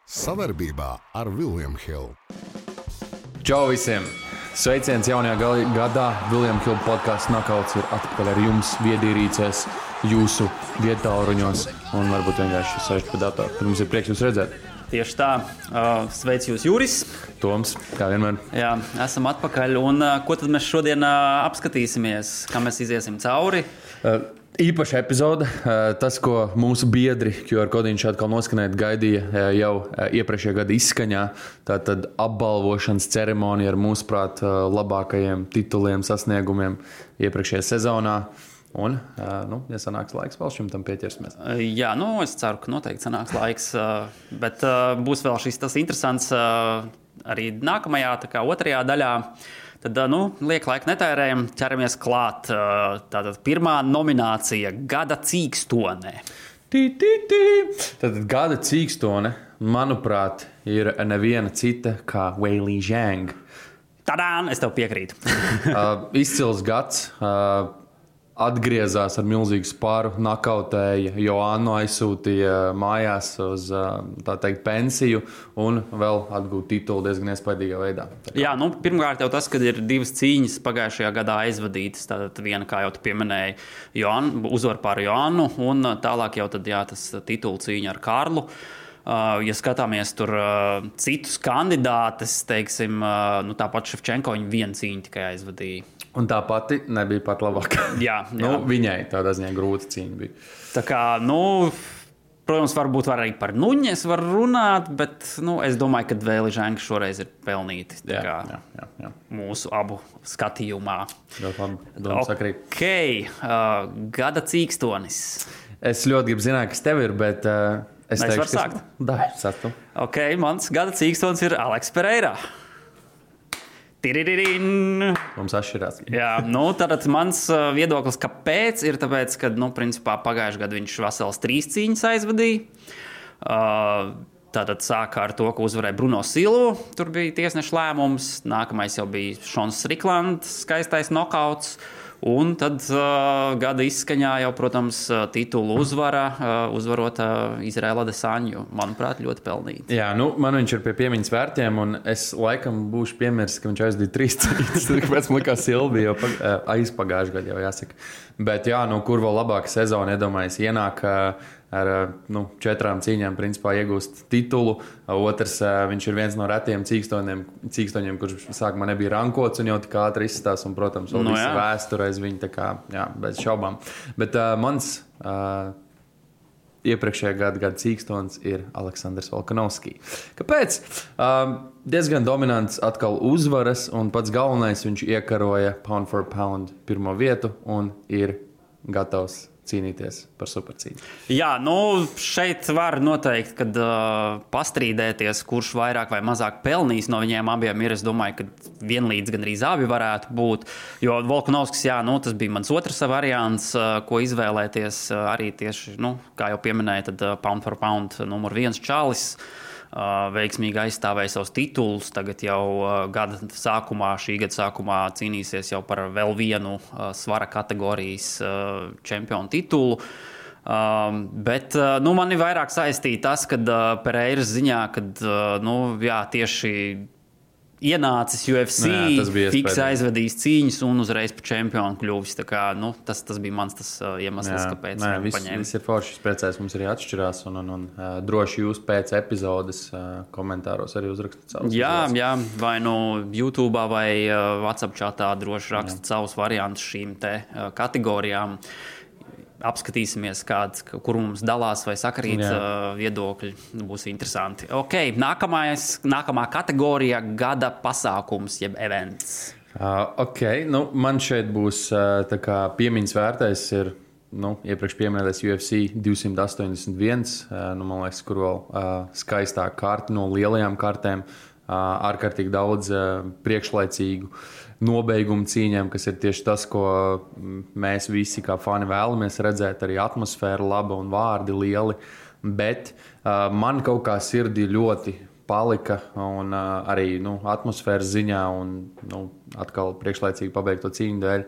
Savarbībā ar William Hill. Čau visiem! Sveiciens jaunajā gadā. William Hill podcasts Knockouts ir atpakaļ ar jums viedierīcēs, jūsu viedtāluruņos un varbūt vienkārši sēžat pie datora. Tad mums ir prieks jūs redzēt. Tieši tā. Sveic jūs, Juris. Toms, kā vienmēr. Jā, esam atpakaļ. Un ko tad mēs šodien apskatīsimies? Kā mēs iziesim cauri? Īpaša epizode. Tas, ko mūsu biedri QR kodiņš atkal noskanēt gaidīja jau iepriekšējā gada izskaņā. Tātad apbalvošanas ceremonija ar mūsuprāt labākajiem tituliem, sasniegumiem iepriekšējā sezonā. Un, ja sanāks laiks, vēl šim tam pieķersimies. Jā, es ceru, ka noteikti sanāks laiks. Bet būs vēl šis tas interesants arī nākamajā, tā kā otrajā daļā. Tad, liek laika netērējam, ķeramies klāt. Tātad pirmā nominācija – Gada cīkstone. Tātad Gada cīkstone, manuprāt, ir neviena cita kā Weili Zhang. Tadām! Es tev piekrītu. Izcils gads. Atgriezās ar milzīgu spāru, nakautēja, Joannu aizsūtīja mājās uz, tā teikt, pensiju un vēl atgūt titulu diezgan iespaidīgā veidā. Jā, pirmkārt jau tas, ka ir divas cīņas pagājušajā gadā aizvadītas. Tātad viena, kā jau tu pieminēji, uzvar pār Joannu un tālāk jau tad, tas titulu cīņa ar Karlu. Ja skatāmies tur citus kandidātus, teiksim, tāpat Ševčenko viņa vienu cīņu tikai aizvadīja. Un tā pati nebija pat labākā. Jā. Viņai tādā ziņā grūta cīņa bija. Tā kā, protams, varbūt arī par Nuņes var runāt, bet es domāju, ka Weili Zhang šoreiz ir pelnīti. Jā. Mūsu abu skatījumā. Sakrīt. Gada cīkstonis. Es ļoti gribu zināt, kas tev ir, bet es teikšu, varu sākt. Sāktu. Mans gada cīkstonis ir Aleks Pereira. Mums atšķirās. Jā, tātad mans viedoklis, kāpēc, ir tāpēc, ka, principā pagājušajā gadā viņš vesels 3 cīņas aizvadīja. Tātad sāka ar to, ka uzvarēja Bruno Silvu. Tur bija tiesneša lēmums. Nākamais jau bija Šons Striklands, skaistais nokauts. Un tad gada izskaņā jau, protams, titulu uzvarot Izraela Adesanju. Manuprāt, ļoti pelnīti. Jā, man viņš ir pie piemiņas vērtiem, un es laikam būšu piemirsis, ka viņš aizdīja 3 cīņas. Kāpēc man likās Silvija jau aizpagājušajā gadā jau jāsaka. Bet jā, kur vēl labāka sezona, iedomājies, ienāk ar 4 cīņām principā iegūst titulu. Otrs, viņš ir viens no retiem cīkstoņiem, kurš sākumā nebija rankots un jau tik ātri izstās. Un, protams, vēl visa vēsture aiz viņa, tā kā, bez šaubām. Bet mans iepriekšējā gada cīkstons ir Aleksandrs Volkanovskis. Kāpēc? Diezgan dominants atkal uzvaras, un pats galvenais viņš iekaroja pound for pound pirmo vietu un ir gatavs cīnīties par supercīņu. Jā, šeit var noteikt, kad pastrīdēties, kurš vairāk vai mazāk pelnīs no viņiem abiem ir. Es domāju, ka vienlīdz gandrīz abi varētu būt. Jo Volkanovskis, tas bija mans otrs variants, ko izvēlēties arī tieši, kā jau pieminēja, tad pound for pound numur 1 čalis. Veiksmīgi aizstāvēja savus titulus. Tagad jau šī gada sākumā cīnīsies jau par vēl vienu svara kategorijas čempionu titulu. Bet man ir vairāk saistīta tas, ka Pereiras ziņā, kad tieši ienācis UFC, fiks aizvadījis cīņas un uzreiz par čempionu kļuvis. Tā kā, tas bija mans iemesls, kāpēc paņēma. Viss ir forši, priecājos, mums arī atšķirās un droši jūs pēc epizodes komentāros arī uzrakstat savus. Jā, vai YouTube vai WhatsApp chatā droši rakstat savus variantus šīm te kategorijām. Apskatīsimies, kur mums dalās vai sakrīt viedokļi. Būs interesanti. Nākamā kategorija – gada pasākums, jeb events. Man šeit būs tā kā piemiņas vērtais ir iepriekš pieminētais UFC 281. Man liekas, kur vēl skaistāk karti no lielajām kartēm. Ārkārtīgi daudz priekšlaicīgu nobeigumu cīņām, kas ir tieši tas, ko mēs visi kā fani vēlamies redzēt. Arī atmosfēra laba un vārdi lieli. Bet man kaut kā sirdī ļoti palika un arī atmosfēras ziņā un atkal priekšlaicīgi pabeigto cīņu dēļ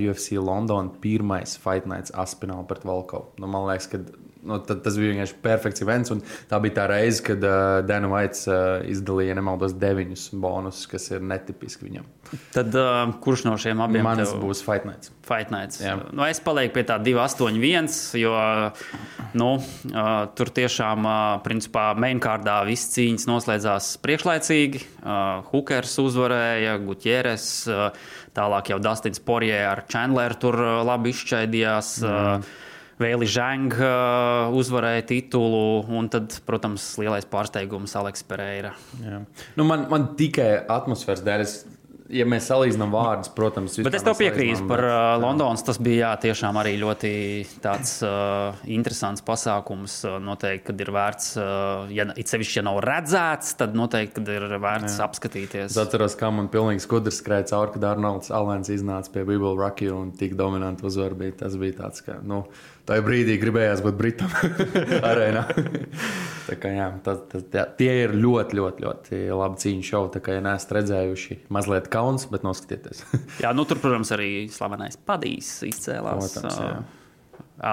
UFC London pirmais Fight Nights Aspinall pret Volkovu. Man liekas, ka tas bija vienkārši perfekts events. Tā bija tā reize, kad Dana White izdalīja, nemaldos, 9 bonusus, kas ir netipiski viņam. Tad kurš no šiem abiem Mans būs Fight Nights. Fight Nights. Jā. Es palieku pie tā 2-8-1, jo tur tiešām, principā, mainkārdā viss cīņas noslēdzās priekšlaicīgi. Hookers uzvarēja, Gutieres, tālāk jau Dustins Poirier ar Chandleru tur labi izšķaidījās. Vēli Zhang uzvarēja titulu, un tad, protams, lielais pārsteigums Aleks Pereira. Jā. Man tikai atmosfēras dēļ, ja mēs salīdzinām vārdus, protams, bet es tev piekrītu par Londonas. Tas bija tiešām arī ļoti tāds interesants pasākums. Noteikti, kad ir vērts, it sevišķi, ja nav redzēts, tad noteikti, kad ir vērts apskatīties. Es atceros, kā man pilnīgi skudrs skrēja cauri, kad Arnolds Alens iznāca pie We Will Rock You un tik dominanti uzvar bija. Tas bija tāds, ka, tajā brīdī gribējās būt Britam arēnā. Tā kā, jā, tie ir ļoti, ļoti, ļoti labi cīņu šovi. Tā kā, ja neesat redzējuši, mazliet kauns, bet noskatieties. Jā, tur, protams, arī slavenais Padijs izcēlās. Protams,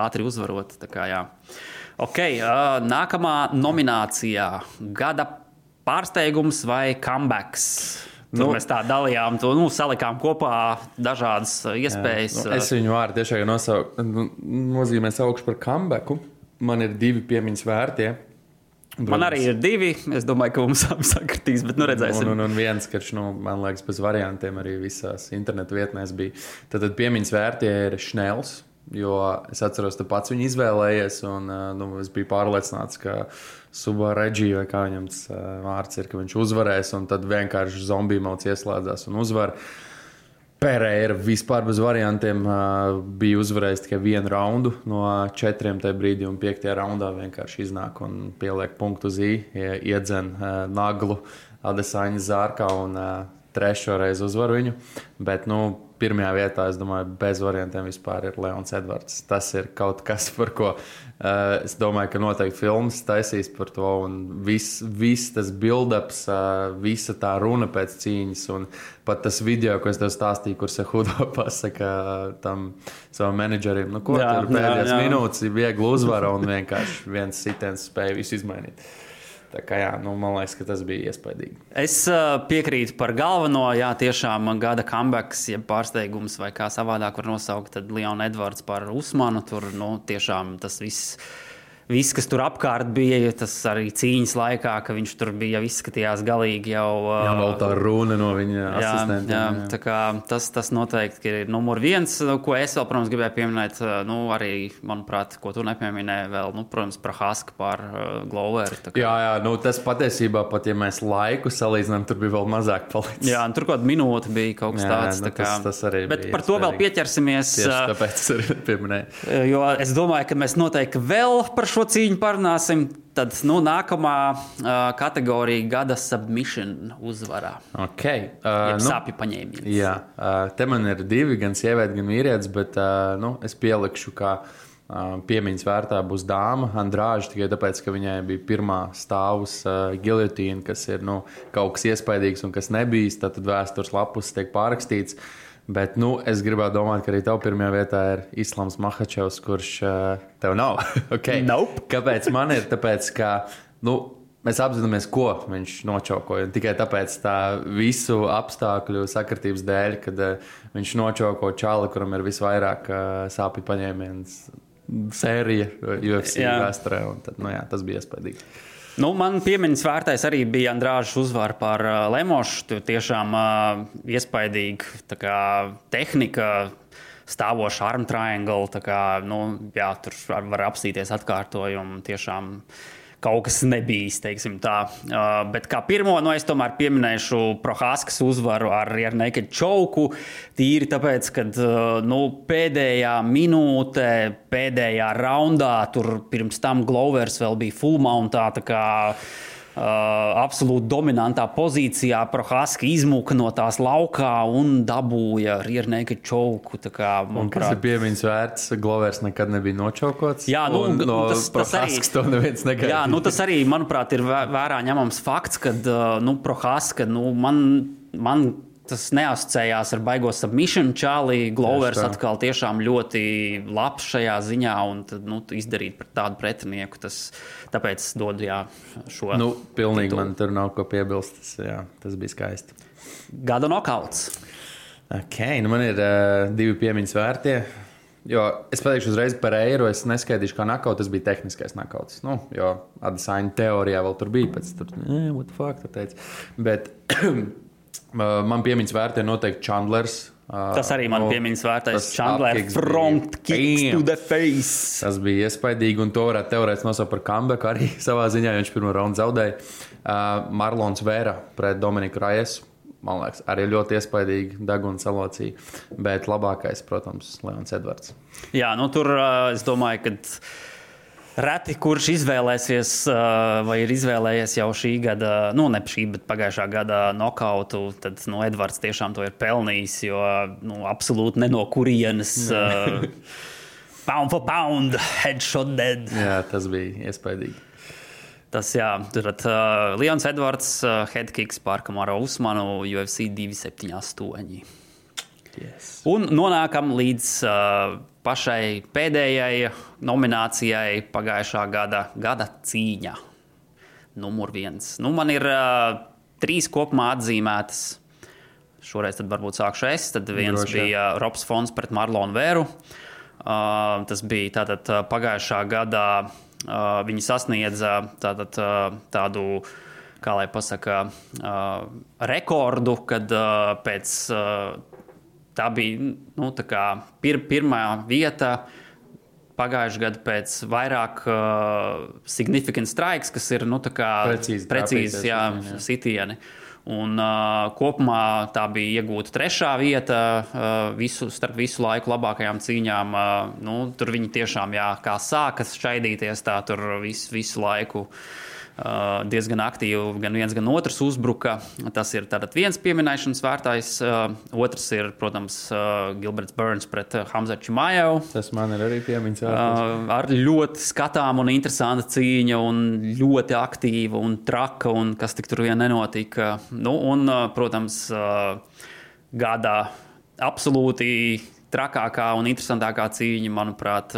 ātri uzvarot. Tā kā, jā. Okay, nākamā nominācijā - gada pārsteigums vai comebacks? Tur mēs tā dalījām, salikām kopā dažādas iespējas. Es viņu vārdu tiešām nozīmē saukšu par comebacku. Man ir 2 piemiņas vērtie. Man arī ir 2. Es domāju, ka mums sakritīs, bet redzēsim. Un viens, karš, man liekas, bez variantiem arī visās internetu vietnēs bija. Tad piemiņas vērtie ir Šnels, jo es atceros, tu pats viņu izvēlējies, un es biju pārliecināts, ka Suba Reģī, vai kā viņam tas vārds ir, ka viņš uzvarēs, un tad vienkārši zombiju mauts ieslēdzās un uzvar. Pereira vispār bez variantiem bija uzvarējis tikai 1 raundu no 4 tajā brīdī, un 5. raundā vienkārši iznāk un pieliek punktu uz I, iedzen naglu Adesanya Zārkā un 3. reizi uzvar viņu. Bet, pirmajā vietā, es domāju, bez variantiem vispār ir Leons Edvards. Tas ir kaut kas, par ko es domāju, ka noteikti filmas taisīs par to. Un viss tas build-ups, visa tā runa pēc cīņas. Un pat tas video, ko es tev stāstīju, kur Sehudo pasaka tam savam menedžerim, tur pēdējās minūtes ir viegli uzvara un vienkārši viens sitiens spēja visu izmainīt. Tā kā, jā, man liekas, ka tas bija iespaidīgi. Es piekrītu par galveno, jā, tiešām gada comebacks, ja pārsteigums vai kā savādāk var nosaukt, tad Leon Edvards par Usmanu. Tur, tiešām tas viss, kas tur apkārt bija, tas arī cīņas laikā, ka viņš tur bija, jau izskatījās galīgi jau... Jā, vēl tā runa no viņa asistentiem. Jā, tā kā tas noteikti ir numur 1, ko es vēl, protams, gribēju pieminēt, arī, manuprāt, ko tu nepieminēji vēl, protams, Prohaska par Gloveru. Jā, tas patiesībā, pat ja mēs laiku salīdzinām, tur bija vēl mazāk palicis. Jā, tur kaut kāda minūte bija kaut kas tāds. Tas arī bet par to vēl pieķersimies. Tieši tāpēc es arī pieminēju. Jo es domāju, ka mēs noteikti vēl par šo cīņu parunāsim. Tad nākamā kategorija gada submission uzvarā. Okay. Sāpju paņēmiens. Jā, te man ir 2, gan sieviete, gan vīrietis, bet es pielikšu, ka piemiņas vērtā būs dāma Andrāža, tikai tāpēc, ka viņai bija pirmā stāvus giljotīna, kas ir kaut kas iespaidīgs un kas nebijis, tad vēstures lapus tiek pārrakstīts. Bet es gribētu domāt, ka arī tev pirmajā vietā ir Islams Makhačevs, kurš tev nav. Okay. Nope. Kāpēc man ir? Tāpēc, ka mēs apzināmies, ko viņš nočaukoja. Un tikai tāpēc tā visu apstākļu sakritības dēļ, kad viņš nočauko čali, kuram ir visvairāk sāpju paņēmiens sērija UFC vēsturē. Un tad, tas bija iespaidīgi. Man piemiņas vērtais arī bija Andrāžas uzvara par Lemošu. Tiešām iespaidīga tehnika, stāvoša arm triangle. Tur var apstīties atkārtojumu. Tiešām kaut kas nebijis, teiksim tā. Bet kā pirmo, es tomēr pieminēšu Prohaskas uzvaru ar rear naked choke. Tīri tāpēc, kad pēdējā minūte, pēdējā raundā, tur pirms tam Glovers vēl bija full mountā, tā kā absolūti dominantā pozīcijā. Prohaska izmuka no tās laukā un dabūja rear naked choke. Kas ir piemiņas vērts? Glovers nekad nebija nočaukots. Jā, tas arī, to neviens negaidīja. Jā, tas arī, manuprāt, ir vērā ņemams fakts, kad Prohaska, man tas neasociējās ar baigo submission čāli. Glovers atkal tiešām ļoti labs šajā ziņā un tad, izdarīt pret tādu pretinieku. Tāpēc dod šo. Pilnīgi titul. Man tur nav ko piebilst. Tas bija skaisti. Gada nokauts. Man ir 2 piemiņas vērtie. Jo es pateikšu uzreiz par Eiro, es neskaidīšu, kā nokauts, tas bija tehniskais nokauts. Jo Adesanya teorijā vēl tur bija, pēc tur, what the fuck, tu teici. Bet man piemiņas vērtē noteikti Chandlers. Tas arī man piemiņas vērtais Chandler front kicks to the face. Tas bija iespaidīgi, un to varētu teorētiski nosaukt par comeback arī savā ziņā, jo viņš pirmo raundu zaudēja. Marlons Vera pret Dominiku Rajesu. Man liekas, arī ļoti iespaidīgi deguna salocīja, bet labākais, protams, Leons Edvards. Jā, tur es domāju, ka reti kurš izvēlēsies vai ir izvēlējies jau šī gada, ne šī, bet pagājušā gada nokautu, tad Edvards tiešām to ir pelnījis, jo absolūti ne no kurienes pound for pound, headshot dead. Jā, tas bija iespaidīgi. Tas, tad Leons Edvards, headkicks pār Kamaru Usmanu, UFC 278. Yes. Un nonākam līdz pašai pēdējai nominācijai pagājušā gada cīņa. Numur 1. Man ir 3 kopumā atzīmētas. Šoreiz tad varbūt sākšu es. Tad viens bija Robs Fons pret Marlonu Vēru. Tas bija tātad pagājušā gadā. Viņi sasniedza tādu, kā lai pasaka, rekordu, kad pēc tā bija tā kā pirmā vieta pagājušā gada pēc vairāk significant strikes, kas ir tā kā precīzi sitieni. Un kopumā tā bija iegūta 3. vieta starp visu laiku labākajām cīņām. Tur viņi tiešām, kā sākas šaidīties, tā tur visu laiku diezgan aktīvi gan viens, gan otrs uzbruka. Tas ir tātad viens pieminēšanas vērtais. Otrs ir, protams, Gilberts Burns pret Hamzatu Chimaevu. Tas man ir arī piemiņas vērtais. Ar ļoti skatām un interesanta cīņa un ļoti aktīva un traka un kas tik tur vien nenotika. Un, protams, gada absolūti trakākā un interesantākā cīņa, manuprāt,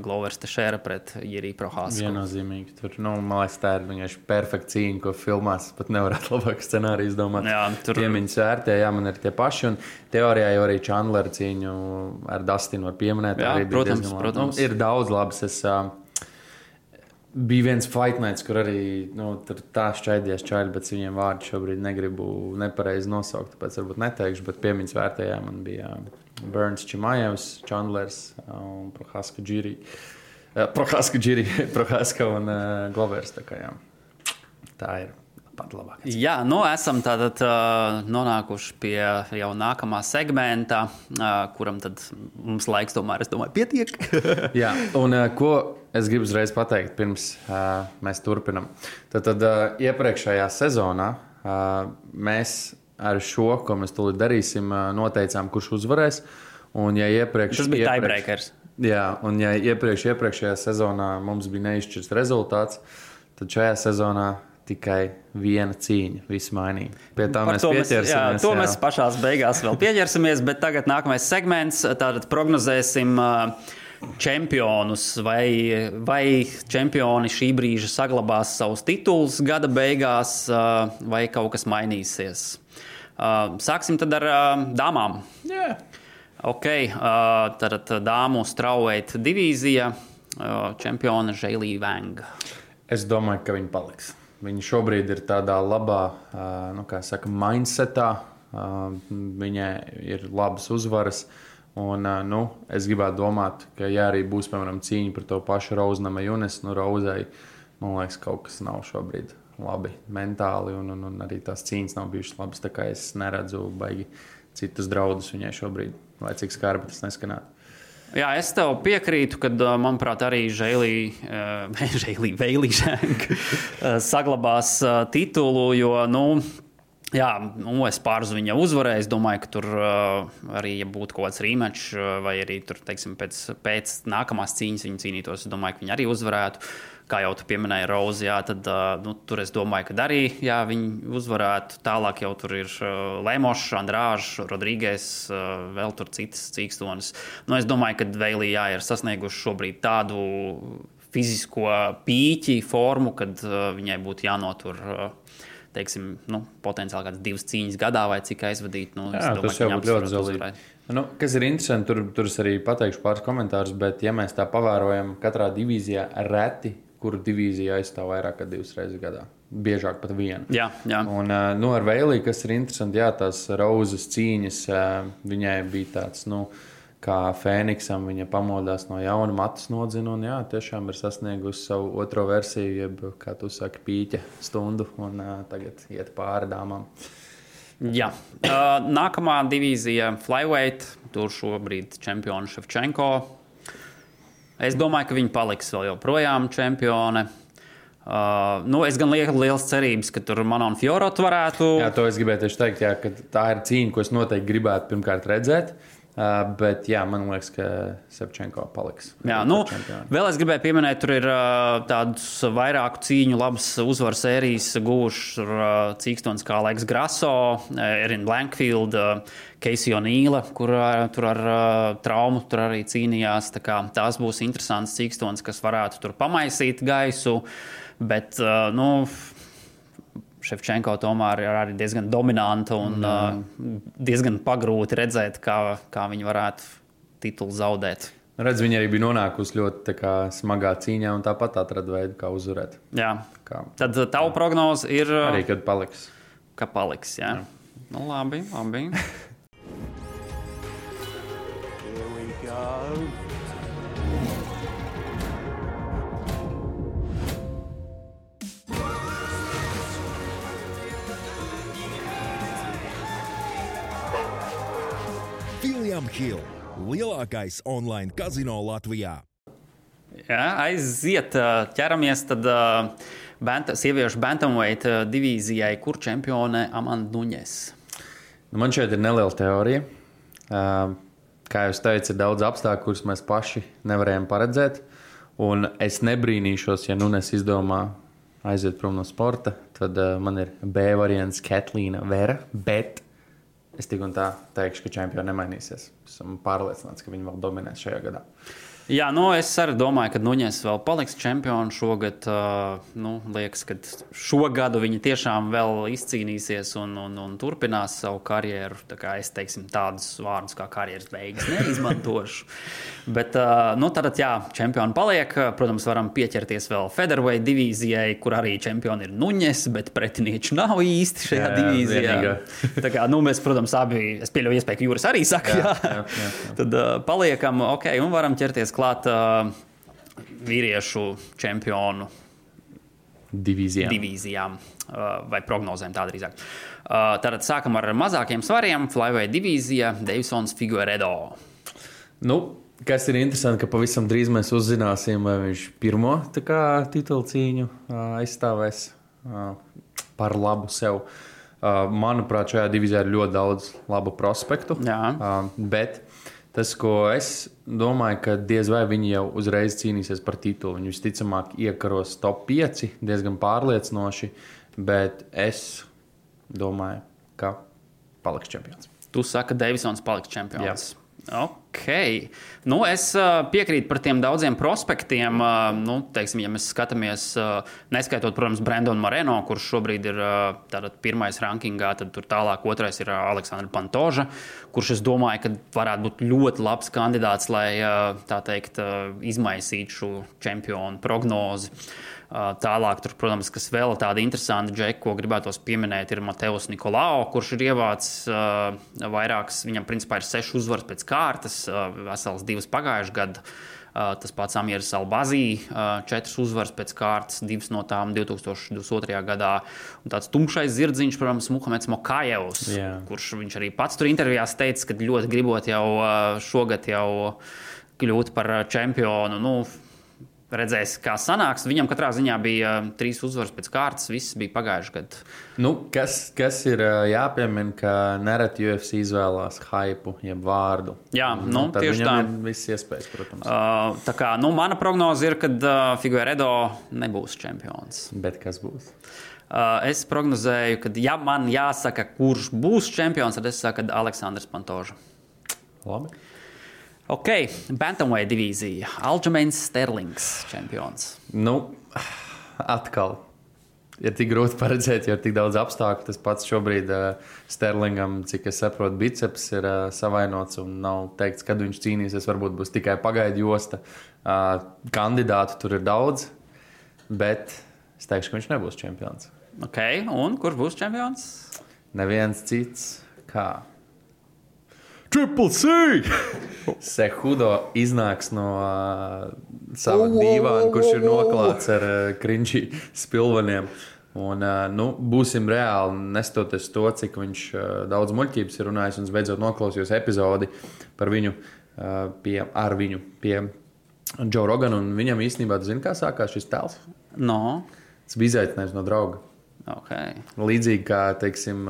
Glovers Teixeira pret Jiri Prochazku. Viennozīmīgi. Tur, man liekas, tā ir vienkārši perfekta cīņa, ko filmās pat nevarētu labāk scenāriju izdomāt. Piemiņas vērtē, man ir tie paši. Un teorijā jau arī Chandlera cīņu ar Dustinu var pieminēt. Jā, protams. Ir daudz labas. Bija viens fight nights, kur arī tur tā šķaidies čaļi, bet viņiem vārdu šobrīd negribu nepareizi nosaukt, tāpēc varbūt neteikšu, bet piemiņas vērtējā man bija Burns Chimaevs, Chandlers un Prochazka Jiri. Prochazka un Glovers. Tā ir pat labāk. Jā, esam tātad nonākuši pie jau nākamā segmenta, kuram tad mums laiks tomēr, es domāju, pietiek. Jā, un ko es gribu uzreiz pateikt, pirms mēs turpinam. Tad iepriekšējā sezonā mēs ar šo, ko mēs tūlīt darīsim, noteicām, kurš uzvarēs. Un ja tas bija tiebreakers. Jā, un ja iepriekšējā sezonā mums bija neizšķirts rezultāts, tad šajā sezonā tikai viena cīņa, viss mainīja. Pie tā mēs pieķersimies. To mēs pašās beigās vēl pieķersimies, bet tagad nākamais segments, tātad prognozēsim čempionus, vai čempioni šī brīža saglabās savus titulus gada beigās, vai kaut kas mainīsies. Sāksim tad ar dāmām. Yeah. Ok, tad dāmu strawweight divīzija, čempiona Zheili Wang. Es domāju, ka viņi paliks. Viņi šobrīd ir tādā labā, mindsetā. Viņai ir labas uzvaras. Un, es gribētu domāt, ka ja arī būs, piemēram, cīņa par to pašu Rose Namajunas, Rozei, man liekas, kaut kas nav šobrīd labi mentāli, un arī tās cīņas nav bijušas labas, tā kā es neredzu baigi citus draudus viņai šobrīd, lai cik skarbi tas neskanētu. Jā, es tev piekrītu, kad, manuprāt, arī Zheili Wang saglabās titulu, jo, Jā, es pārzu viņa uzvarēju. Es domāju, ka tur arī, ja būtu kaut kāds rematch, vai arī tur, teiksim, pēc nākamās cīņas viņa cīnītos, es domāju, ka viņa arī uzvarētu. Kā jau tu pieminēji, Rozi, jā, tad tur es domāju, ka arī viņi uzvarētu. Tālāk jau tur ir Lemošs, Andrāžs, Rodrīgēs, vēl tur citas cīkstonis. Es domāju, ka Veilī ir sasnieguši šobrīd tādu fizisko pīķi formu, kad viņai būtu jānotur teiksim, potenciāli kādas 2 cīņas gadā vai cik aizvadīt. Jā, tas jau būtu ļoti zelīgi. Kas ir interesanti, tur es arī pateikšu pāris komentārus, bet ja mēs tā pavērojam katrā divīzijā reti, kuru divīzija aizstāv vairāk kā 2 reizes gadā. Biežāk pat 1. Jā. Un ar Veilī, kas ir interesanti, tās Rozes cīņas, viņai bija tāds, kā Fēniksam, viņa pamodās no jauna, matus nodzina un tiešām ir sasniegusi savu otro versiju, jeb, kā tu saki, pīķa stundu un tagad iet pāri dāmām. Jā. Nākamā divīzija flyweight, tur šobrīd čempioni Ševčenko. Es domāju, ka viņi paliks vēl joprojām čempione. Es gan lieku liels cerības, ka tur Manon Fiorot varētu. Jā, to es gribēju tieši teikt, ka tā ir cīņa, ko es noteikti gribētu pirmkārt redzēt. Bet man liekas, ka Ševčenko paliks. Jā, vēl es gribēju pieminēt, tur ir tādas vairāku cīņu labas uzvaru sērijas guvušas cīkstons kā Alex Grasso, Erin Blankfield, Casey O'Neila, kur tur ar traumu tur arī cīnījās. Tās būs interesants cīkstons, kas varētu tur pamaisīt gaisu, bet, Ševčenko tomēr ir arī diezgan dominanta un diezgan pagrūti redzēt, kā viņi varētu titulu zaudēt. Redz, viņa arī bija nonākusi ļoti smagā cīņā un tāpat atrada veidu, kā uzvarēt. Jā. Tad tavu prognoze ir... Arī, kad paliks. Ka paliks, jā. Labi. Here we go. William Hill, lielākais online kazino Latvijā. Jā, aiziet, ķeramies tad sieviešu bantamweight divīzijai, kur čempione Amanda Nunes. Man šeit ir neliela teorija. Kā jūs teicat, ir daudz apstākļu, kurus mēs paši nevarējām paredzēt. Un es nebrīnīšos, ja Nunes izdomā aiziet prom no sporta. Tad man ir B variants Katlīna Vera, bet es tik un tā teikšu, ka čempioni nemainīsies. Esmu pārliecināts, ka viņi vēl dominēs šajā gadā. Jā, es arī domāju, ka Nunes vēl paliks čempioni šogad. Liekas, ka šogad viņi tiešām vēl izcīnīsies un turpinās savu karjeru. Tā kā es teiksim tādus vārdus kā karjeras beigas neizmantošu. Bet, tātad, čempioni paliek. Protams, varam pieķerties vēl featherweight divīzijai, kur arī čempioni ir Nunes, bet pretinieču nav īsti šajā divīzijā. Tā kā, mēs, protams, abi, es pieļauju iespēju, ka Jūras arī saka, jā. Tad paliekam, un varam ķerties klāt vīriešu čempionu divīzijām vai prognozēm tā drīzāk. Tātad sākam ar mazākiem svariem. Flyweight divīzija, Deivsons Figueiredo. Kas ir interesanti, ka pavisam drīz mēs uzzināsim, vai viņš pirmo titulu cīņu aizstāvēs par labu sev. Manuprāt, šajā divīzijā ir ļoti daudz labu prospektu. Bet tas, ko es domāju, ka diez vai viņi jau uzreiz cīnīsies par titulu. Viņi visticamāk iekaros top 5, diezgan pārliecinoši, bet es domāju, ka paliks čempions. Tu saki, ka Deivsons paliks čempions. Jā. Ok. Es piekrītu par tiem daudziem prospektiem. Teiksim, ja mēs skatāmies, neskaitot, protams, Brandonu Moreno, kurš šobrīd ir pirmais rankingā, tad tur tālāk otrais ir Aleksandra Pantoža, kurš, es domāju, ka varētu būt ļoti labs kandidāts, lai, tā teikt, izmaisītu šo čempionu prognozi. Tālāk, tur, protams, kas vēl tāda interesanta džeka, ko gribētos pieminēt, ir Mateus Nikolao, kurš ir ievācis vairākas, viņam principā ir 6 uzvaras pēc kārtas, vesels 2 pagājuši gadu. Tas pats Amirs Albazī, 4 uzvaras pēc kārtas, 2 no tām 2022. gadā. Un tāds tumšais zirdziņš, protams, Muhameds Mokajevs, kurš viņš arī pats tur intervijās teica, ka ļoti gribot jau šogad jau kļūt par čempionu. redzēs, kā sanāks. Viņam katrā ziņā bija 3 uzvaras pēc kārtas, viss bija pagājuši gadu. Nu, kas ir jāpiemina, ka nereti UFC izvēlās hypu, jeb vārdu. Jā, nu, tad tieši viņam tā. ir viss iespējas, protams. Tā kā, nu, mana prognoze ir, ka Figueiredo nebūs čempions. Bet kas būs? Es prognozēju, ka, ja man jāsaka, kurš būs čempions, tad es saku, ka Aleksandrs Pantoža. Labi. Ok, Bantamweight divīzija. Aljamains Sterlings čempions. Nu, atkal. Ir tik grūti paredzēt, jo ir tik daudz apstākļu. Tas pats šobrīd Sterlingam, cik es saprotu, biceps ir savainots un nav teikts, kad viņš cīnīsies. Varbūt būs tikai pagaidu josta. Kandidātu tur ir daudz, bet es teikšu, ka viņš nebūs čempions. Ok, un kurš būs čempions? Neviens cits kā Triple C! Cejudo iznāks no sava dīvāna, kurš ir noklāts ar krinči spilveniem. Un, nu, būsim reāli, nestoties to, cik viņš daudz muļķības ir runājis, un es beidzot noklausījos epizodi par viņu pie Joe Rogana, un viņam īstenībā, tu zini, kā sākās šis tēls? No. Tas bija izaicinājums no drauga. Okay. Līdzīgi kā, teiksim,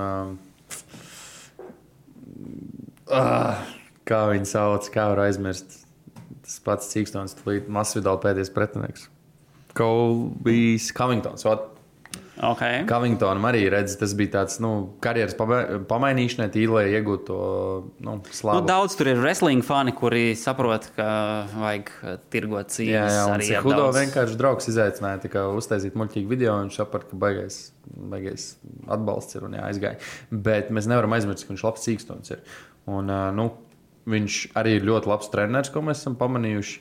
kā viņi sauc, kā var aizmirst. Tas pats Cīkstons, Masvidāla pēdējais pretinieks. Colbys Covingtons. Okay. Covingtonam arī redz, tas bija tāds, karjeras pamainīšanai, tīri, lai iegūtu to, slavu. Daudz tur ir wrestling fani, kuri saprot, ka vajag tirgot cīņas. Jā, un arī Cejudo vienkārši draugs izaicināja uztaisīt muļķīgu video, un viņš saprata, ka baigais atbalsts ir un aizgāja. Bet mēs nevaram aizmirst, ka viņš labs Cīkstons ir. Un, viņš arī ir ļoti labs treneris, ko mēs esam pamanījuši.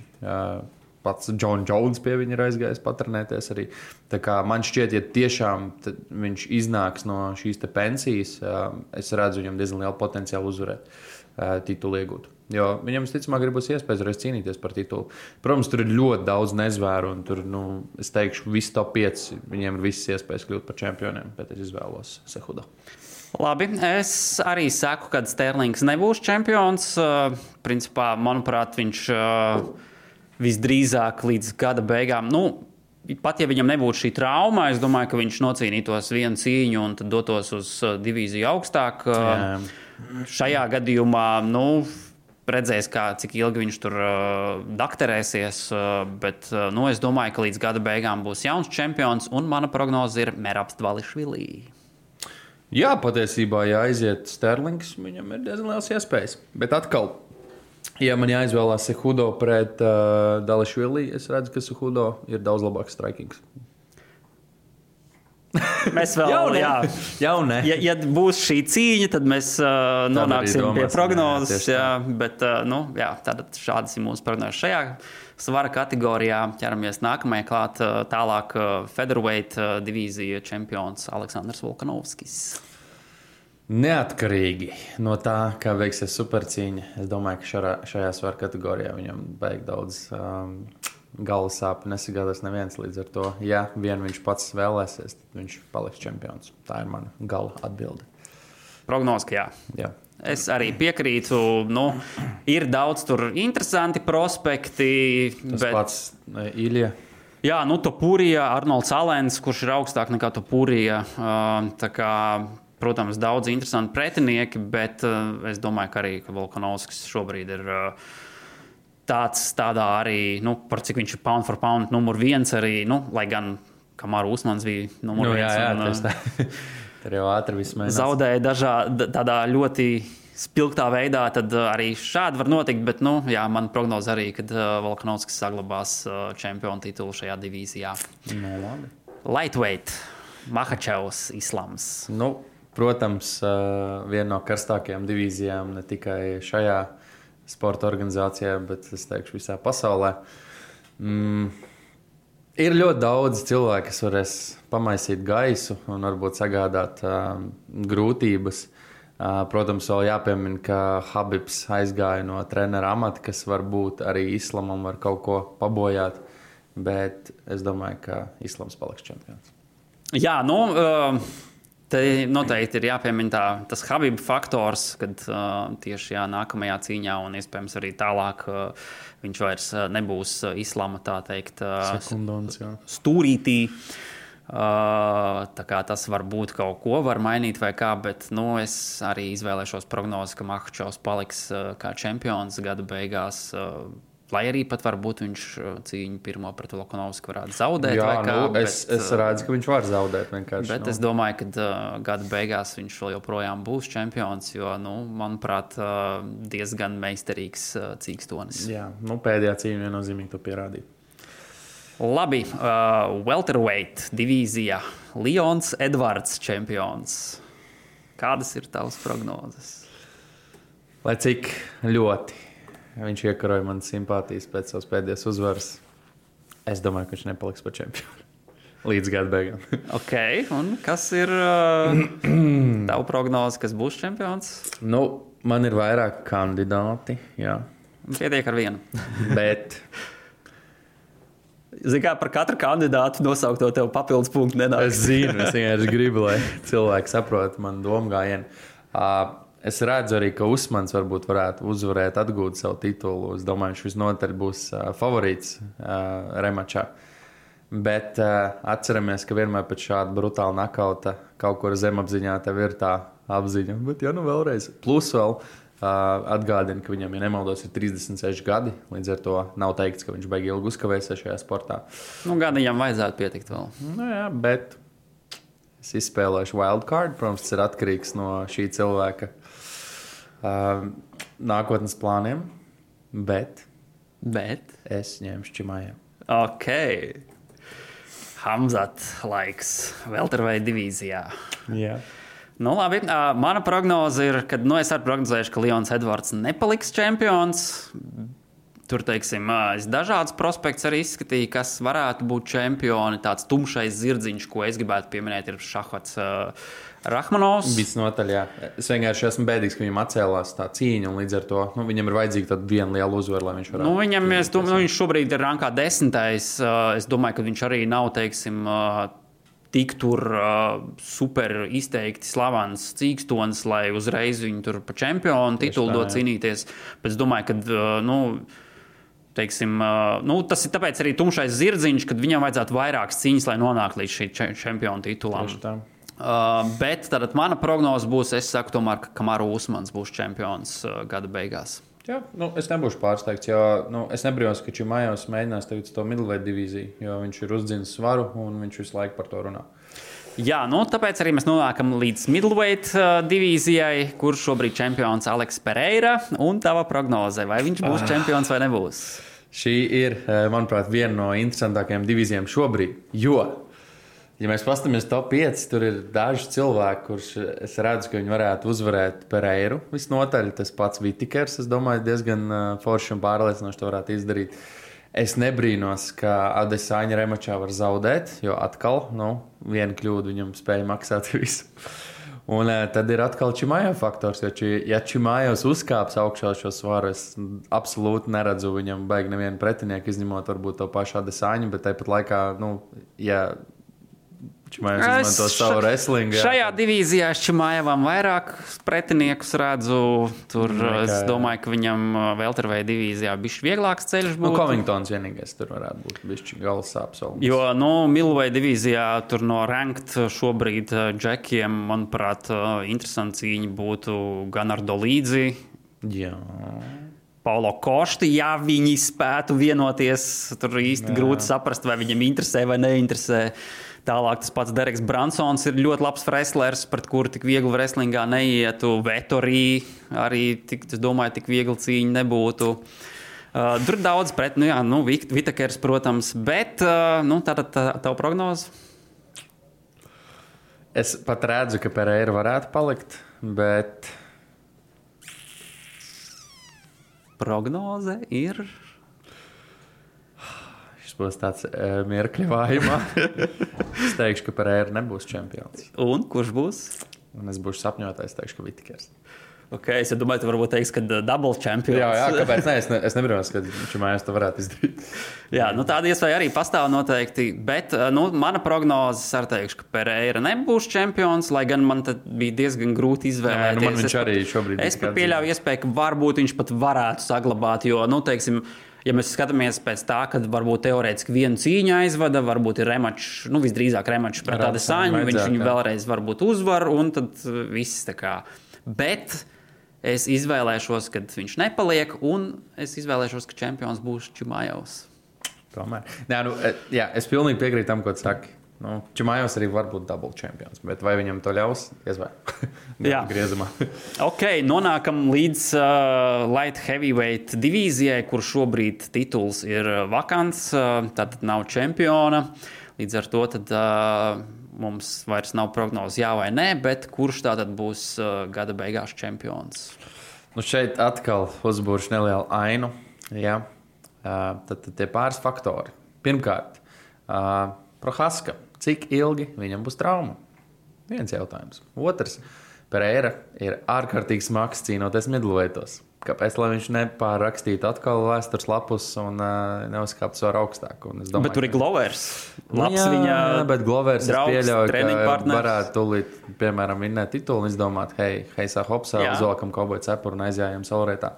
Pats John Jones pie viņa ir aizgājis patrenēties arī. Tā kā man šķiet, ja tiešām viņš iznāks no šīs te pensijas, es redzu viņam diezgan lielu potenciālu uzvarēt titulu iegūt. Jo viņam, visticamāk, būs iespējas reiz cīnīties par titulu. Protams, tur ir ļoti daudz nezvēru, un tur, es teikšu, visi top 5, viņiem ir visas iespējas kļūt par čempioniem, bet es izvēlos Cejudo. Labi, es arī saku, ka Sterlings nebūs čempions. Principā, manuprāt, viņš visdrīzāk līdz gada beigām, pat ja viņam nebūtu šī trauma, es domāju, ka viņš nocīnītos vienu cīņu un tad dotos uz divīziju augstāk. Šajā gadījumā, redzēs, cik ilgi viņš tur dakterēsies, bet es domāju, ka līdz gada beigām būs jauns čempions, un mana prognoze ir Merabs Dvališvili. Jā, patiesībā, ja aiziet Sterlings, viņam ir diezgan liels iespējas. Bet atkal, ja man jāizvēlās Cejudo pret Dvališvili, es redzu, ka Cejudo ir daudz labāks strikings. Mēs vēl, ja būs šī cīņa, tad mēs nonāksim pie prognozes. Tad šādas ir mūsu prognozes šajā svara kategorijā. Ķeramies nākamajā klāt, tālāk featherweight divīzija čempions Aleksandrs Volkanovskis. Neatkarīgi no tā, kā veiksies supercīņa, es domāju, ka šajā svara kategorijā viņam baigi daudz galvas sāpju nesagādās neviens līdz ar to. Ja vien viņš pats vēlēsies, tad viņš paliks čempions. Tā ir mana gala atbilde. Prognoze, ka jā. Es arī piekrītu. Ir daudz tur interesanti prospekti. Tas pats Ilja. Jā, Topurija, Arnolds Alens, kurš ir augstāk nekā Topurija. Tā kā, protams, daudz interesanti pretinieki, bet es domāju, ka arī Volkanovskis šobrīd ir tādā arī, par cik viņš ir pound for pound numur 1 arī, lai gan Kamaru Usmans bija numur 1. Jā, tur jau ātri viss mainās. Zaudēja tādā ļoti spilgtā veidā, tad arī šādi var notikt, bet, man prognoze arī, kad Volkanovskis saglabās čempionu titulu šajā divīzijā. Labi. Lightweight, Makhačevs, Islams. Protams, viena no karstākajām divīzijām ne tikai šajā sporta organizācijā, bet es teikšu visā pasaulē. Ir ļoti daudz cilvēku, kas varēs pamaisīt gaisu un varbūt sagādāt grūtības. Protams, vēl jāpiemina, ka Habibs aizgāja no trenera amata, kas varbūt arī Islamam var kaut ko pabojāt, bet es domāju, ka Islams paliks čempions. Jā, Te noteikti ir jāpiemina tas Habība faktors, kad tieši nākamajā cīņā un iespējams arī tālāk viņš vairs nebūs islama, tā teikt, Sekundons, stūrītī. Tā kā tas var būt kaut ko, var mainīt vai kā, bet es arī izvēlēšos prognozi, ka Makhačovs paliks kā čempions gada beigās. Lai arī pat varbūt viņš cīņu pirmo pret Volkanovsku varētu zaudēt. Jā, vai kā, es redzu, ka viņš var zaudēt vienkārši. Bet es domāju, ka gada beigās viņš vēl joprojām būs čempions, jo, manuprāt, diezgan meistarīgs cīkstonis. Jā, pēdējā cīņa viennozīmīgi to pierādīja. Labi, welterweight divīzijā Leons Edvards čempions. Kādas ir tavas prognozes? Lai cik ļoti viņš iekaroja manas simpātijas pēc savas pēdējās uzvaras, es domāju, ka viņš nepaliks par čempionu līdz gada beigām. Ok, un kas ir tava prognoze, kas būs čempions? Man ir vairāk kandidāti, jā. Pietiek ar vienu. Bet Zini, kā par katru kandidātu nosaukt to tev papildus punktu nenāk. es zinu, es vienkārši gribu, lai cilvēki saprot manu domu gājienu. Es redzu arī, ka Usmans varbūt varētu uzvarēt, atgūt savu titulu. Es domāju, viņš visnotaļ būs favorīts remačā. Bet atceramies, ka vienmēr pēc šāda brutāla nakauta kaut kur zemapziņā tev ir tā apziņa. Bet vēlreiz. Plus vēl atgādina, ka viņam, ja nemaldos, ir 36 gadi. Līdz ar to nav teikts, ka viņš baigi ilgi uzkavēsies šajā sportā. Gadiņam vajadzētu pietikt vēl. Jā, bet es izspēlēšu wildcard. Protams, tas ir atkarīgs no šī cilvēka nākotnes plāniem, bet es ņemšu Čimāju. Ok. Hamzat laiks welterweight divīzijā. Jā. Labi, mana prognoze ir, ka es arī prognozēšu, ka Leons Edvards nepaliks čempions. Tur, teiksim, es dažādas prospekts arī izskatīju, kas varētu būt čempioni. Tāds tumšais zirdziņš, ko es gribētu pieminēt, ir Šahvats Rahmanovs. Visnotaļ, jā. Es vienkārši esmu bēdīgs, ka viņam atcēlās tā cīņa, un līdz ar to viņam ir vajadzīga tāda viena liela uzvara, lai viņš varētu. Viņš šobrīd ir rankā 10. Es domāju, ka viņš arī nav, teiksim, tik tur super izteikti slavens cīkstonis, lai uzreiz viņu tur pa čempionu titulu dot cīnīties. Bet es domāju, ka, teiksim, tas ir tāpēc arī tumšais zirdziņš, kad viņam vajadzētu vairākas cīņas, lai nonāktu līdz šī čempionu titulam. Bet tad mana prognoze būs, es saku tomēr, ka Kamaru Usmans būs čempions gada beigās. Jā, es nebūšu pārsteigts, jo es nebrīnos, ka Čimājos mēģinās tagad to middleweight divīziju, jo viņš ir uzdzinis svaru un viņš visu laiku par to runā. Jā, tāpēc arī mēs nonākam līdz middleweight divīzijai, kur šobrīd čempions Aleks Pereira. Un tava prognoze, vai viņš būs čempions vai nebūs? Šī ir, manuprāt, viena no interesantākajām divīzijām šobrīd, jo, ja mēs paskatāmies top 5, tur ir daži cilvēki, kurš es redzu, ka viņi varētu uzvarēt Pereiru. Visnotaļ tas pats Vitikers, es domāju, diezgan forši un pārliecinoši to varētu izdarīt. Es nebrīnos, ka Adesāņa remačā var zaudēt, jo atkal, viena kļūda viņam spēja maksāt visu. Un tad ir atkal Čimājo faktors, jo ja Čimājos uzkāps augšā šo svaru, es absolūti neredzu viņam baigi nevienu pretinieku, izņemot varbūt to pašu Adesāņu, bet tāpat laikā, ja Čimājos izmanto savu wrestlingu. Šajā divīzijā es Čimājevam vairāk pretiniekus redzu. Tur es domāju, ka viņam welterweight divīzijā bišķi vieglāks ceļš būtu. Covingtons vienīgais tur varētu būt bišķi galvas sāpes. Jo, middleweight divīzijā tur no ranked šobrīd džekiem, manuprāt, interesanti cīņa būtu gan ar Dolīdzi. Jā. Paulo Košti, ja viņi spētu vienoties, tur īsti grūti saprast, vai viņam interesē vai neinteresē. Tālāk tas pats Dereks Bransons ir ļoti labs wrestlers, pret kuru tik viegli wrestlingā neietu. Vettorī arī, es domāju, tik viegli cīņa nebūtu. Tur ir daudz pret, Vitakers, protams, bet tātad tavu prognozi? Es pat redzu, ka Pereira varētu palikt, bet prognoze ir... Šis būs tāds mierkļavājumā. Es teikšu, ka Pereira nebūs čempions. Un kurš būs? Un es būšu sapņotājs, teikšu, ka Vitikers. Okay, es domāju, tu varbūt teiksi, ka double champions. Jā, kāpēc ne? Es nebrīnos, ka Čimājos to varētu izdarīt. Jā, tāda iespēja arī pastāv noteikti, bet mana prognoze, es teikšu, ka Pereira nebūs čempions, lai gan man tad bija diezgan grūti izvēlēties. Man viņš arī šobrīd es pat pieļauju iespēju, ka varbūt viņš pat varētu saglabāt, jo, teiksim, ja mēs skatāmies pēc tā, kad varbūt teorētiski vienu cīņu aizvada, varbūt ir remačs, visdrīzāk remačs pret tādu saņu, viņš viņu vēlreiz varbūt uzvar, un tad viss tā kā. Bet es izvēlēšos, kad viņš nepaliek, un es izvēlēšos, ka čempions būs Čimājovs. Tomēr. Es pilnīgi piekrītu tam, ko tu saki. Čimājovs arī var būt double champions, bet vai viņam to ļaus? Jā, griezumā. Ok, nonākam līdz light heavyweight divīzijai, kur šobrīd tituls ir vakants, tātad nav čempiona. Līdz ar to tad mums vairs nav prognozi jā vai nē, bet kurš tātad būs gada beigās čempions? Šeit atkal uzbūršu nelielu ainu. Jā. Tad tie pāris faktori. Pirmkārt, Prohaska. Cik ilgi viņam būs trauma? Viens jautājums. Otrs, Pereira ir ārkārtīgi smags cīnoties middleweightos. Kāpēc, lai viņš nepārrakstītu atkal vēstures lapus un neuzkāptu vēl augstāk? Domāju, bet tur ir Glovers. Bet Glovers draugs, pieļauj, ka varētu tūlīt, piemēram, vinnēt titulu un izdomāt, heisā hopsā, uzvalkam kauboju cepuru un aizjājam saulrietā.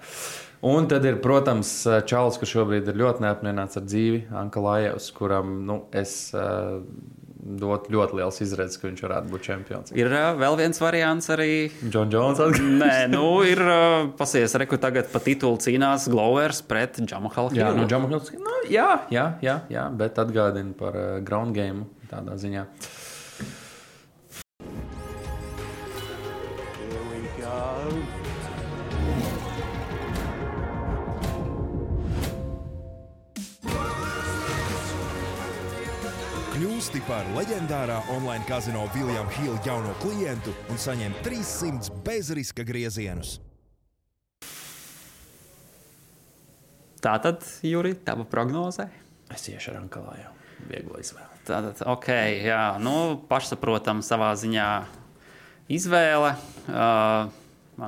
Un tad ir, protams, čalis, kurš šobrīd ir ļoti neapmierināts ar dzīvi, Ankalājevs, kuram es dot ļoti liels izredzes, ka viņš varētu būt čempions. Ir vēl viens variants arī. John Jones atgriežas. Nē, ir pasies, reku tagad pa titulu cīnās Glovers pret Jamahal Hillu. Jā, bet atgādina par ground game tādā ziņā. Here we go. Kļūsti par leģendārā online kazino William Hill jauno klientu un saņem 300 bezriska griezienus. Tātad, Juri, tava prognozē? Es iešu ar Ankalāju. Viegla izvēle. Tātad, ok, jā, pašsaprotam savā ziņā izvēle.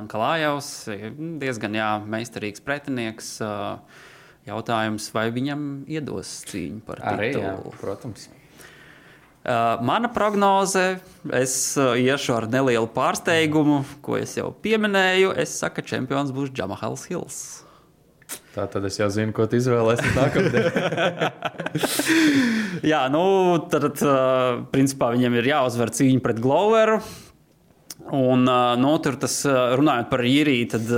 Ankalājevs ir diezgan, meistarīgs pretinieks. Jautājums, vai viņam iedos cīņu par titulu? Arī, jā, protams. Mana prognoze, es iešu ar nelielu pārsteigumu, ko es jau pieminēju. Es saku, ka čempions būs Jamahals Hills. Tātad es jau zinu, ko tu izvēlēsies nākamdien. Jā, tad principā viņam ir jāuzvar cīņa pret Gloveru. Un, tur tas, runājot par Jiriju, tad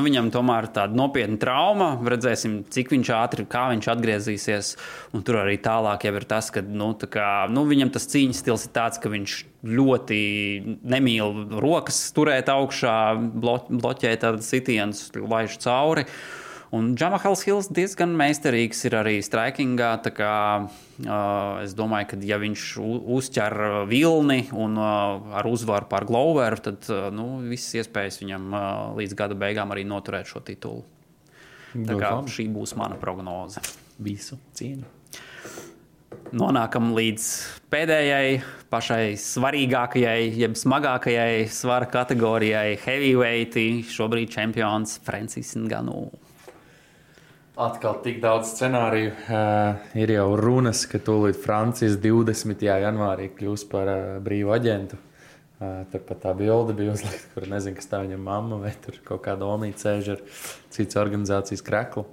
viņam tomēr tāda nopietna trauma. Redzēsim, cik viņš ātri, kā viņš atgriezīsies. Un tur arī tālāk jau ir tas, ka viņam tas cīņas stils ir tāds, ka viņš ļoti nemīl rokas turēt augšā, bloķēt tādas sitienus, laiž cauri. Un Jamahals Hills diezgan meistarīgs ir arī strikingā, tā kā es domāju, ka ja viņš uzķer vilni un ar uzvaru pār Gloveru, tad visas iespējas viņam līdz gada beigām arī noturēt šo titulu. Tā kā šī būs mana prognoze. Visu cīņu. Nonākam līdz pēdējai, pašai svarīgākajai, jeb smagākajai svara kategorijai heavyweighti. Šobrīd čempions Francis Ngannou. Atkal tik daudz scenāriju. Ir jau runas, ka tūlīt Francijas 20. janvārī kļūs par brīvu aģentu. Turpat tā bilde bija uzlikta, kur nezinu, kas tā viņam mamma vai tur kaut kāda omīte sēž ar cits organizācijas kreklu.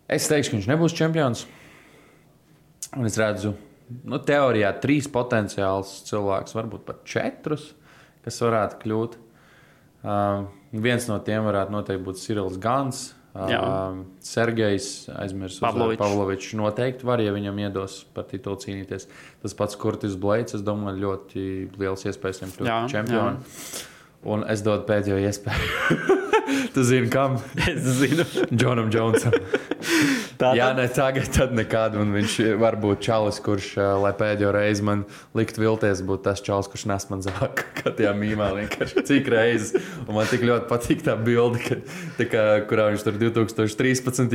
Es teikšu, ka viņš nebūs čempions. Un es redzu, teorijā 3 potenciāls cilvēks, varbūt pat 4, kas varētu kļūt. Viens no tiem varētu noteikti būt Cyrils Gans. Sergejs aizmirst Pavlovičs noteikti var, ja viņam iedos par titulu cīnīties. Tas pats Kurtis Blades, es domāju, ļoti liels iespējas viņam kļūt čempionu. Un es dodu pēdējo iespēju. Tu zini, kam? Es zinu. Jonam Jonesam. Jā, ne tagad, tad nekad. Un viņš var būt čalis, kurš, lai pēdējo reizi man likt vilties, būtu tas čalis, kurš nes man zāku. Kā tajā mīmā vienkārši cik reizes. Un man tik ļoti patīk tā bilde, kurā viņš tur 2013.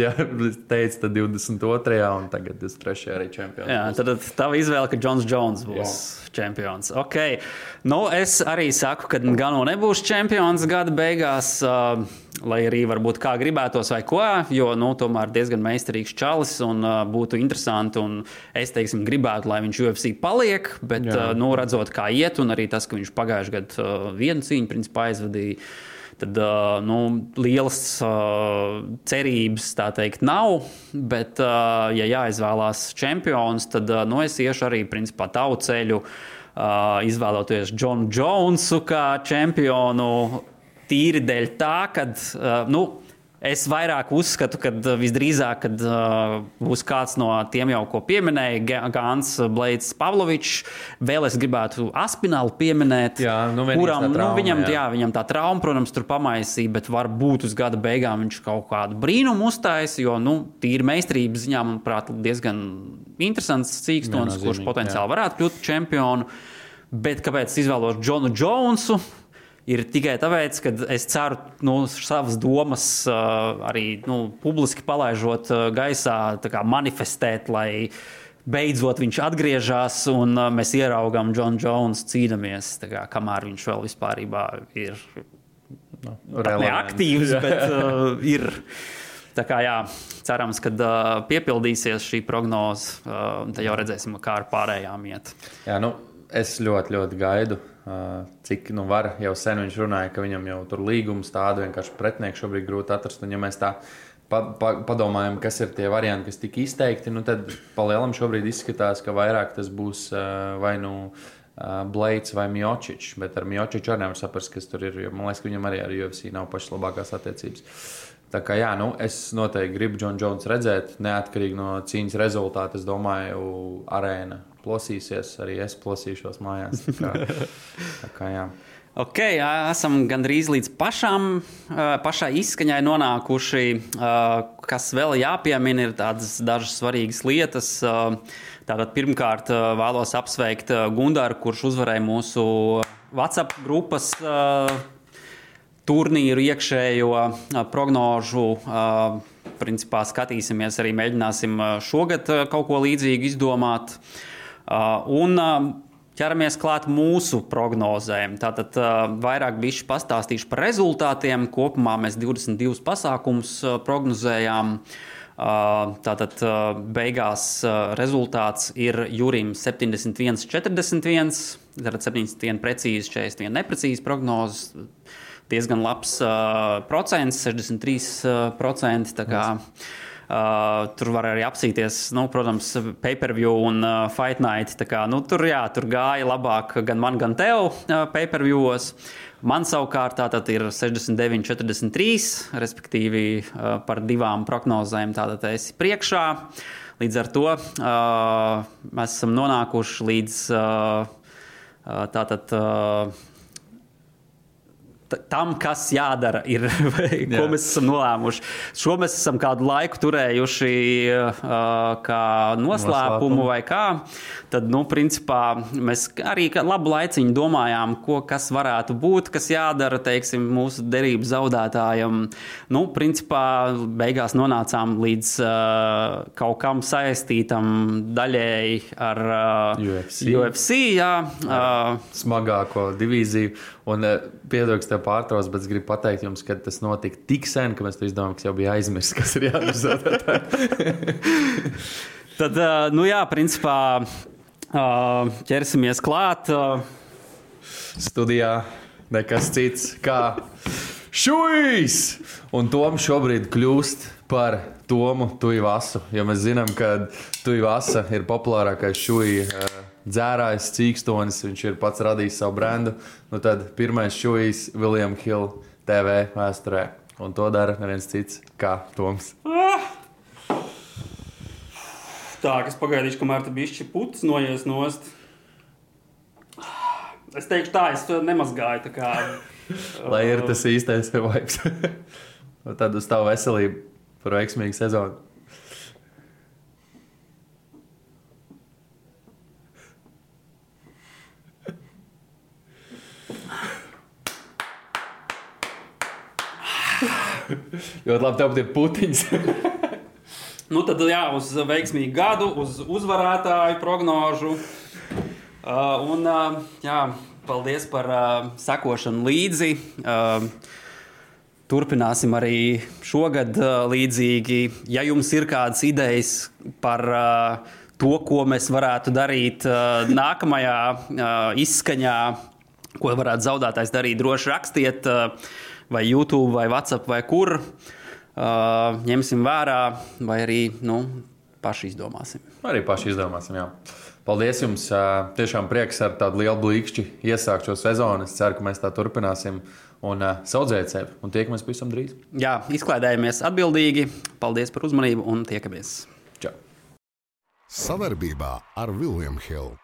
Teica, tad 22. un tagad 23. arī čempions. Jā, tad tava izvēle, ka Džons Jones būs čempions. Okay. Nu, es arī saku, ka Gano nebūs čempions gada beigās, lai arī varbūt kā gribētos vai ko, jo, tomēr diezgan meistarīgs čalis un būtu interesanti un es, teiksim, gribētu, lai viņš UFC paliek, bet, redzot, kā iet un arī tas, ka viņš pagājuši gadu vienu cīņu, principā aizvadīja, tad, lielas cerības, tā teikt, nav, bet, ja jāizvēlās čempions, tad, es iešu arī, principā, tavu ceļu, izvēloties Džonu Jonesu kā čempionu, tīri dēļ tā, kad, es vairāk uzskatu, ka visdrīzāk, kad būs kāds no tiem jau, ko pieminēja, Gans, Blades, Pavlovičs, vēl es gribētu Aspinālu pieminēt, kuram, viņam tā trauma, protams, tur pamaisīja, bet varbūt uz gada beigām viņš kaut kādu brīnumu uztaisa, jo, tīri meistarības ziņā, manuprāt, diezgan interesants cīkstons, kurš potenciāli varētu kļūt čempionu, bet kāpēc izvēlos Džonu Jonesu? Ir tikai tāpēc, ka es ceru savas domas arī publiski palaižot gaisā, tā kā manifestēt, lai beidzot viņš atgriežas un mēs ieraugām Džonu Jonesu cīnamies, tā kā, kamēr viņš vēl vispārībā ir neaktīvs, bet ir. Tā kā cerams, ka piepildīsies šī prognoze, tad jau redzēsim, kā ar pārējām iet. Jā, es ļoti, ļoti gaidu. Cik var, jau sen viņš runāja, ka viņam jau tur līgums tādu vienkārši pretinieku šobrīd grūti atrast, un ja mēs tā padomājam, kas ir tie varianti, kas tika izteikti, tad palielam šobrīd izskatās, ka vairāk tas būs vai Blades vai Miocic, bet ar Miocic arī nevar saprast, kas tur ir, jo man liekas, ka viņam arī ar UFC nav pašas labākās attiecības. Tā kā es noteikti gribu Džonu Jonesu redzēt, neatkarīgi no cīņas rezultāta, es domāju, arēna plosīsies, arī es plosīšos mājās. Tā kā jā. Ok, esam gandrīz līdz pašai izskaņai nonākuši. Kas vēl jāpiemina, ir tādas dažas svarīgas lietas. Tātad pirmkārt vēlos apsveikt Gundaru, kurš uzvarēja mūsu WhatsApp grupas turnīru iekšējo prognožu. Principā skatīsimies, arī mēģināsim šogad kaut ko līdzīgu izdomāt. Un ķeramies klāt mūsu prognozēm. Tātad vairāk bišķi pastāstīšu par rezultātiem. Kopumā mēs 22 pasākumus prognozējām. Tātad beigās rezultāts ir Jurim 71-41. Tātad 71 precīzi, 41 neprecīzi prognozes. Diezgan labs procents, 63%. Tā kā tur var arī apsīties, protams, pay-per-view un Fight Night. Tā kā, tur gāja labāk gan man, gan tev pay-per-viewos. Man savukārt tātad ir 69-43, respektīvi par divām prognozēm tātad esi priekšā. Līdz ar to mēs esam nonākuši līdz tātad tam, kas jādara, ir, ko mēs esam nolēmuši. Šo mēs esam kādu laiku turējuši kā noslēpumu vai kā. Tad, principā, mēs arī labu laiciņu domājām, kas varētu būt, kas jādara, teiksim, mūsu derību zaudētājam. Principā, beigās nonācām līdz kaut kam saistītam daļēji ar UFC, jā. Smagāko divīziju. Un piedod, ka tev pārtrauc, bet es gribu pateikt jums, ka tas notika tik sen, ka mēs to izdomājam, ka jau bija aizmirsts, kas ir jādara. Tad, principā, ķersimies klāt. Studijā nekas cits kā Šujs! Un Toms šobrīd kļūst par Tomu Tuivasu, jo mēs zinām, ka Tuivasa ir populārākais Šuja dzērājs, cīkstonis, viņš ir pats radījis savu brendu. Tad pirmais Šujs William Hill TV vēsturē. Un to dara neviens cits kā Toms. Tā, kas pagaidīšu, kamēr te bišķi putas noies nost. Es teikšu tā, es to nemazgāju, tā kā... Lai ir tas īstais vibes. Tad uz tavu veselību par veiksmīgu sezonu. Ļoti labi, tev ir putiņas. Nu, tad jā, uz veiksmīgu gadu, uz uzvarētāju prognožu. Jā, paldies par sekošanu līdzi. Turpināsim arī šogad līdzīgi. Ja jums ir kādas idejas par to, ko mēs varētu darīt nākamajā izskaņā, ko varētu zaudētājs darīt, droši rakstiet vai YouTube, vai WhatsApp, vai kur. Ņemsim vērā, vai arī paši izdomāsim. Arī paši izdomāsim, jā. Paldies jums. Tiešām prieks ar tādu lielu blīkšķi iesākt šo sezonu. Es ceru, ka mēs tā turpināsim un saudzēt sevi. Un tiekamies pavisam drīz. Jā, izklaidējamies atbildīgi. Paldies par uzmanību un tiekamies. Čau. Savarbībā ar William Hill.